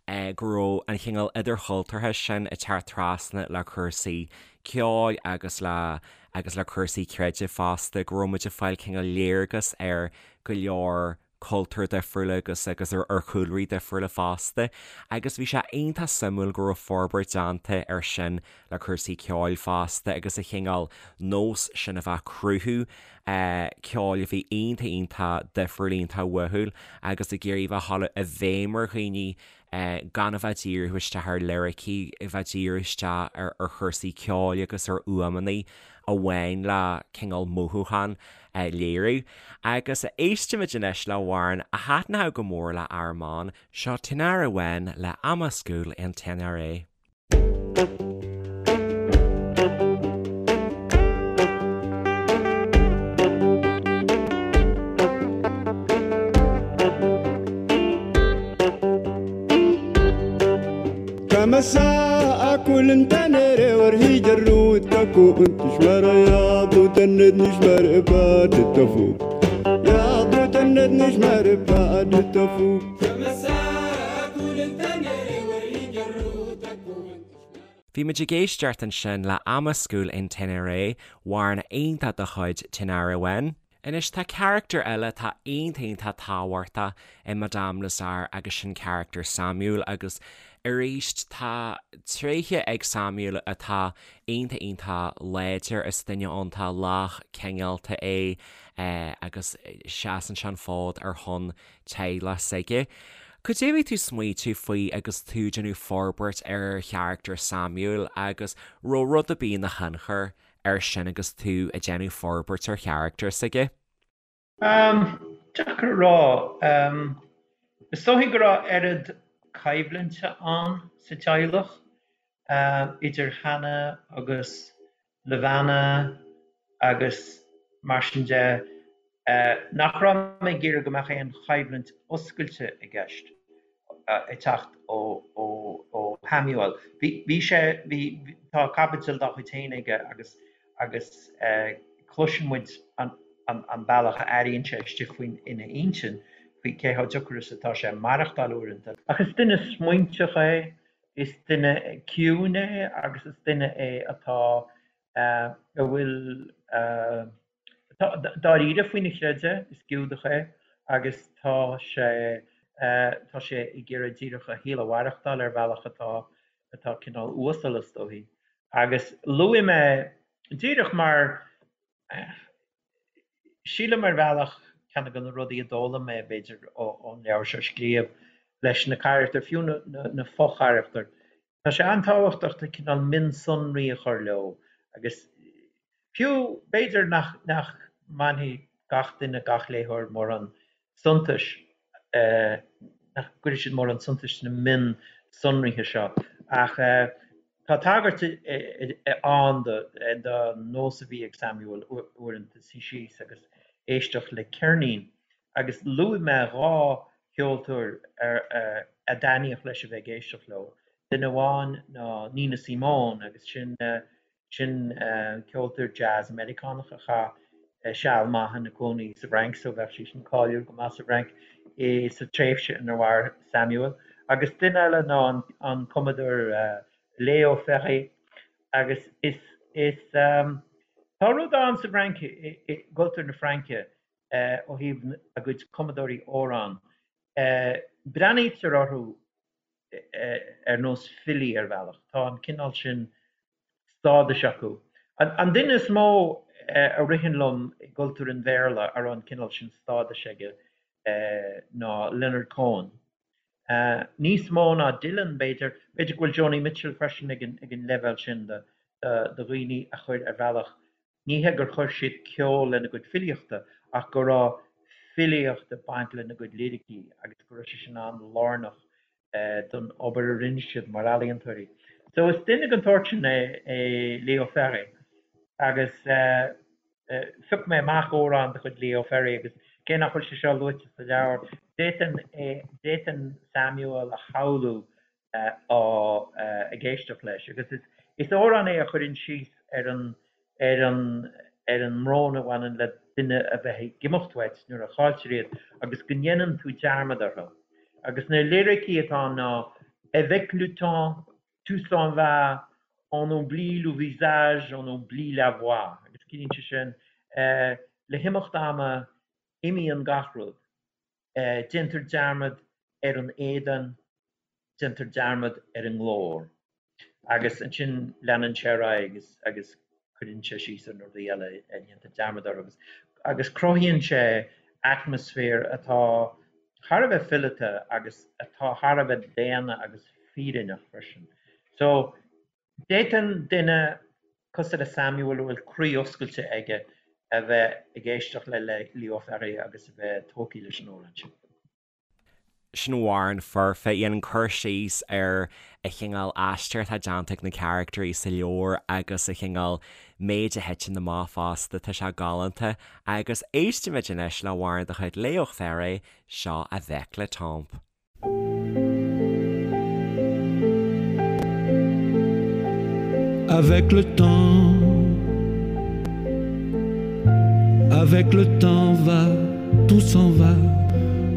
eh go raibh an chineál idirchultúrtha sin ag teacht trasna le cúrsaí ceoil agus le, agus le cúrsaí creidimh fosta, go raibh muid ag fáil cineál léargas ar go leor cultúir difriúla agus agus ar chúlraí difriúla fosta agus bhí sé iontach suimiúil go raibh forbairt déanta ar sin le cúrsaí ceoil fosta agus an chineál nós sin a bheith ag cruthú ceoil a bhí iontach iontach difriúil iontach uathúil agus ag iarraidh bheith ag dul i bhfeidhm ar dhaoine gan a bheith ag díriú isteach ar liricí, a bheith ag díriú isteach ar chúrsaí ceoil agus ar fhuaimeanna amháin le cineál mothúchán a léiriú. Agus éistimid anois le hamhrán a thaitneodh go mór le Armand, seo Tinariwen le Amascool en Ténéré. Bhí muid ag éisteacht ansin le Amascool en Ténéré, amhrán iontach de chuid Tinariwen. Anois tá carachtar eile atá iontach iontach tábhachtach i Madame Lazare agus sin carachtar Samuel agus arís tá tréithe ag Samuel atá iontach iontach láidir, is duine iontach lách cineálta é agus seasann sé an fód ar shon teaghlach s'aige. Cad é a bhí tú ag smaoitiú faoi agus tú ag déanamh forbairt ar charachtar Samuel agus raibh rud ar bith ina thionchar air sin agus tú ag déanamh forbairt ar charachtar s'aige? Deacair a rá. Is dóichí go raibh oiread coimhlinte ann sa teaghlach idir Hannah agus Levana agus mar sin de, nach raibh mé ag iarraidh go mbeadh aon choimhlint oscailte i gceist ag teacht ó Shamuel. Bhí sé, bhí, tá caibidil dá chuid féin aige agus agus cloiseann muid an an bealach a airíonn sé istigh faoin ina intinn faoi cé chomh deacair is atá sé maireachtáil uaireanta. Ach is duine smaointeach é, Is duine ciúin é agus is duine é atá, a bhfuil, atá dáiríre faoina chreideamh, is Giúdach é agus tá sé, tá sé ag iarraidh díreach a shaol a mhaireachtáil ar bhealach atá, atá cineál uasal is dóichí. Agus luaigh mé, díreach mar, Sílim ar bhealach, ceann de na rudaí a d'fhoghlaim mé, b'fhéidir, ón leabhar seo a scríobh, leis na carachtair, fiú na fo-charachtair, tá sé an-tábhachtach do cineál mionsonraí a chur leo agus fiú, b'fhéidir nach mbainfidh gach duine, gach léitheoir mórán suntais, nach gcuirfidh siad mórán suntais sna mionsonraithe seo ach. Tá tagairt ann don nós a bhí ag Samuel uaireanta suí síos agus éisteacht le ceirnín agus luaigh mé 2 cheoltóir a dtaitníodh leis a bheith ag éisteacht leo. Duine amháin ná Nina Simone agus sin Sin ceoltóir jazz Meiriceánach a chaith seal maith ina cónaí sa bhFrainc, so bheadh sí sin cáiliúil go maith sa bhFrainc sa tréimhse inar mhair Samuel. Agus duine eile ná an cumadóir Léo Ferré. Agus is, is, tá rud ann sa bhFrainc, i gcultúr na Fraince, ó thaobh a gcuid cumadóirí amhrán, breathnaítear orthu ar nós filí ar bhealach. Tá an cineál sin stádais acu. An duine is mó a ritheann liom i gcultúr an Bhéarla a raibh an cineál sin stádais aige ná Leonard Cohen. Níos mó ná Dylan, b'fhéidir. B'fhéidir go bhfuil Joni Mitchell freisin ag an leibhéal sin de dhaoine a chuir ar bhealach Ní hé gur chuir siad ceol lena gcuid filíochta ach go raibh filíocht ag baint lena gcuid liricí agus go raibh sé sin an-lárnach don obair a rinne siad mar ealaíontóirí. So is duine den tsórt sin é Léo Ferré agus phioc mé amach amhrán de chuid Leo Ferré agus cé nach bhfuil sé seo luaite sa leabhar, d'fhéadfainn Samuel a shamhlú á ag éisteacht leis agus is amhrán é a chuireann síos ar an ar an ar an mbrón a bhaineann le duine a bheith ag imeacht uait nuair a chailltear iad agus go ndéanann tú dearmad orthu. Agus na liricí atá ann ná Avec le temps, tout s'en va, on oublie le visage, on oublie la voix agus ciallaíonn sé sin le himeacht ama imíonn gach rud. Déantar dearmad ar an éadan, déantar dearmad ar an nglór. Agus ansin leanann sé ar aghaidh agus agus cuireann sé síos ar na rudaí eile a ndéantar dearmad orthu agus agus cruthaíonn sé atmaisféar atá thar a bheith fileata agus atá thar a bheith daonna agus fírinneach freisin. So D'fhéadfadh duine cosúil le Samuel a bhfuil croí oscailte aige a bheith ag éisteacht le Leo Ferré agus a bheith tógtha leis an amhrán sin. Sin amhrán foirfe, dhéanann cur síos ar an chineál aistear atá déanta ag na caractairí sa leabhar agus an chineál méid a thiteann amach fosta, tá sé galánta. Agus éistfimid anois le hamhrán de chuid Leo Ferré, seo Avec le Temps. Avec le temps Avec le temps va, tout s'en va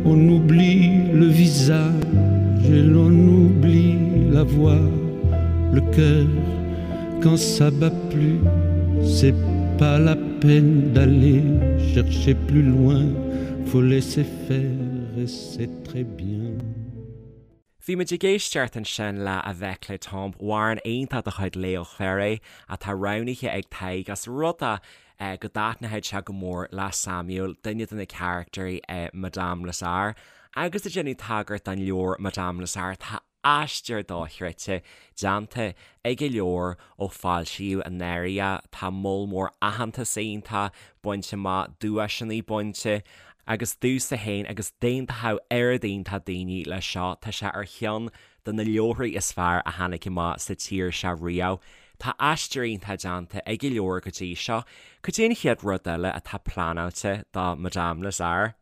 On oublie le visage et l'on oublie la voix Le cœur quand ça bat plus C'est pas la peine d'aller chercher plus loin Faut laisser faire et c'est très bien. Bhí muid ag éisteacht ansin le Avec le Temps, amhrán iontach de chuid Léo Ferré atá roghnaithe ag Tadhg as rud é go dtaitneoidh sé go mór le Samuel, duine de na caractairí i Madame Lazare. Agus ag déanamh tagairt don leabhar Madame Lazare, tá aistear dochreidte déanta ag an leabhar ó foilsíodh anuraidh é. Tá moll mór aitheantas iontach bainte amach, duaiseanna bainte agus domhsa féin agus d'aontódh oiread iontach daoine leis seo, tá sé ar cheann de na leabharthaí is fearr a tháinig amach sa tír seo riamh. Tá aistear iontach déanta ag an leabhar go dtí seo. Cad é an chéad rud eile atá pleanáilte do Madame Lazare?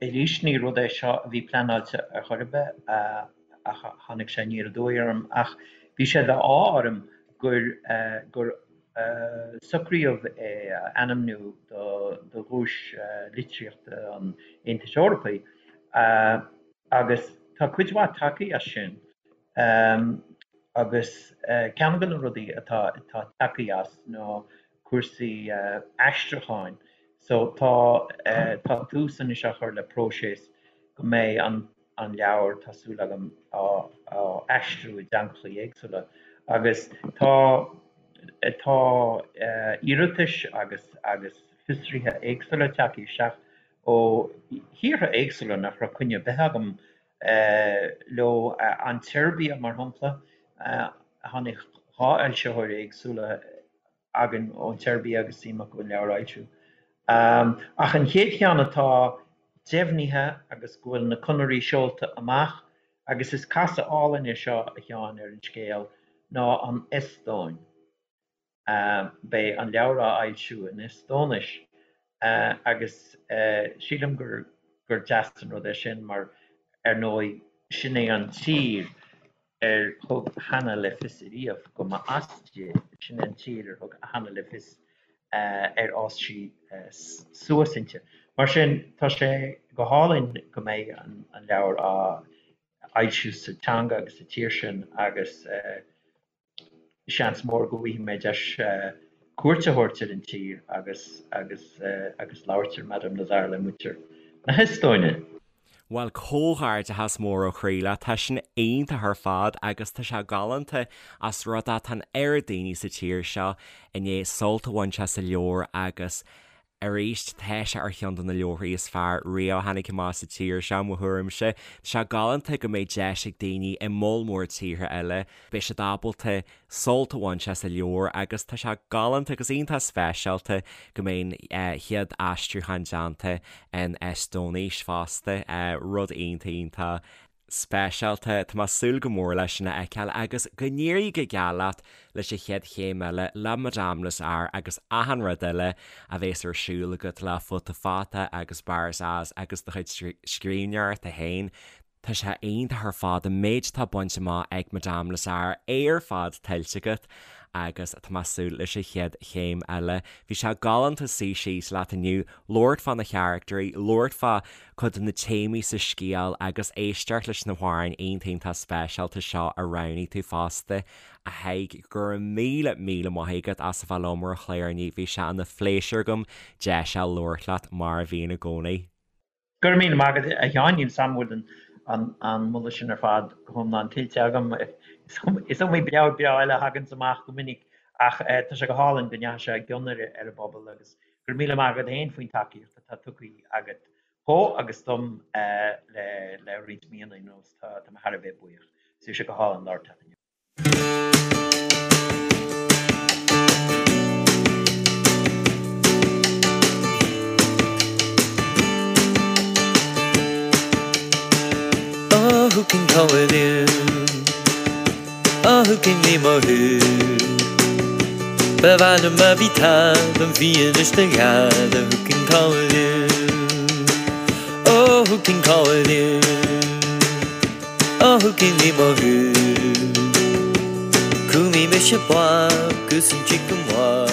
Arís, ní rud é seo a bhí pleanáilte ar chor ar bith ach tháinig sé aniar aduaidh orm. Ach bhí sé d'ádh orm gur gur socraíodh é a ainmniú do do dhuais litríochta an Aontais Eorpaigh agus tá cuid mhaith tagtha as sin agus ceann de na rudaí atá atá tagtha as ná cúrsaí aistriúcháin. So tá tá tús anois á chur le próiseas go mbeidh an an leabhar, tá súil agam, á á aistriú i dteangacha éagsúla. Agus tá tá iarratais agus agus fiosruithe éagsúla tagtha isteach ó thíortha éagsúla nach raibh coinne ar bith agam leo, an tSeirbia mar shampla, tháinig 2 fhoilsitheoir éagsúla againn ón tSeirbia agus suim acu an leabhar a fhoilsiú. Ach an chéad cheann atá deimhnithe agus go bhfuil na conairí seolta amach, agus is casadh álainn é seo, a Sheáin, ar an scéal, ná an Eastóin. Beidh an leabhar á fhoilsiú in Eastóinis agus sílim gur gur deas an rud é sin mar, ar ndóigh, sin é an tír ar thug Hanna le fios ariamh go mba as di, sin é an tír ar thug Hanna le fios ar fhás sí suas inti. Mar sin, tá sé go hálainn go mbeidh an leabhar á fhoilsiú sa teanga agus sa tír sin agus seans mór go bhfaighidh mé deis cuairt a thabhairt ar an tír agus agus agus labhairt ar Madame Lazare le muintir na hEastóine. Bhuel, comhghairdeachas mór ó chroí leat, tá sin iontach ar fad agus tá sé galánta as rud é tá an oiread daoine sa tír seo i ndiaidh sult a bhaint as an leabhar agus arís tá sé ar cheann de na leabharthaí is fearr riamh a tháinig amach sa tír seo, mo thuairimse. Tá sé galánta go mbeidh deis ag daoine i moll mór tíortha eile, beidh siad ábalta sult a bhaint as an leabhar agus tá sé galánta agus iontach speisialta go mbeidh an chéad aistriúchán déanta in Eastóinis fosta, rud iontach iontach speisialta. Tá mé ag súil go mór leis sin a fheiceáil agus go n-éirí go geal leat leis an chéad chéim eile le Madame Lazare agus achan rud eile a bhéas ar siúl agat le Futa Fata agus Barzaz agus do chuid scríbhneoireachta féin. Tá sé iontach ar fad an méid atá bainte amach ag Madame Lazare, é ar fad tuillte agat agus tá mé ag súil leis an chéad chéim eile. Bhí sé galánta suí síos leat inniu, labhairt fá na charactairí, labhairt fá cuid de na téamaí sa scéal agus éisteacht leis na hamhráin iontach iontach speisialta seo a roghnaigh tú fosta. A Thaidhg, go raibh míle míle maith agat as a bheith liom ar an chlár inniu, bhí sé ina phléisiúr agam deis a labhairt leat mar a bhíonn i gcónaí. Go raibh míle maith agat, a Sheáin. Níl 's a'm an bhfuil an moladh sin ar fad go hiomlán tuillte agam. Is iomaí leabhar breá eile a thaganns amach go minic ach tá sé go hálainn go ndeachaigh sé i gcion ar an bpobal agus go raibh míle maith agat féin faoin tacaíocht atá tugtha agat dhó agus dom le roinnt míonna anuas. Tá mé thar a bheith buíoch. Bhí sé go hálainn labhairt leat inniu. Oh, who can call it in? Oh, who can lí mo thú? Ba mhaith liom má bhí tada an bhfianaise do gheada Who can call it in? Oh, who can call it in? Oh, who can lí mo thú? Cúmí mise blag gus an chicken wag.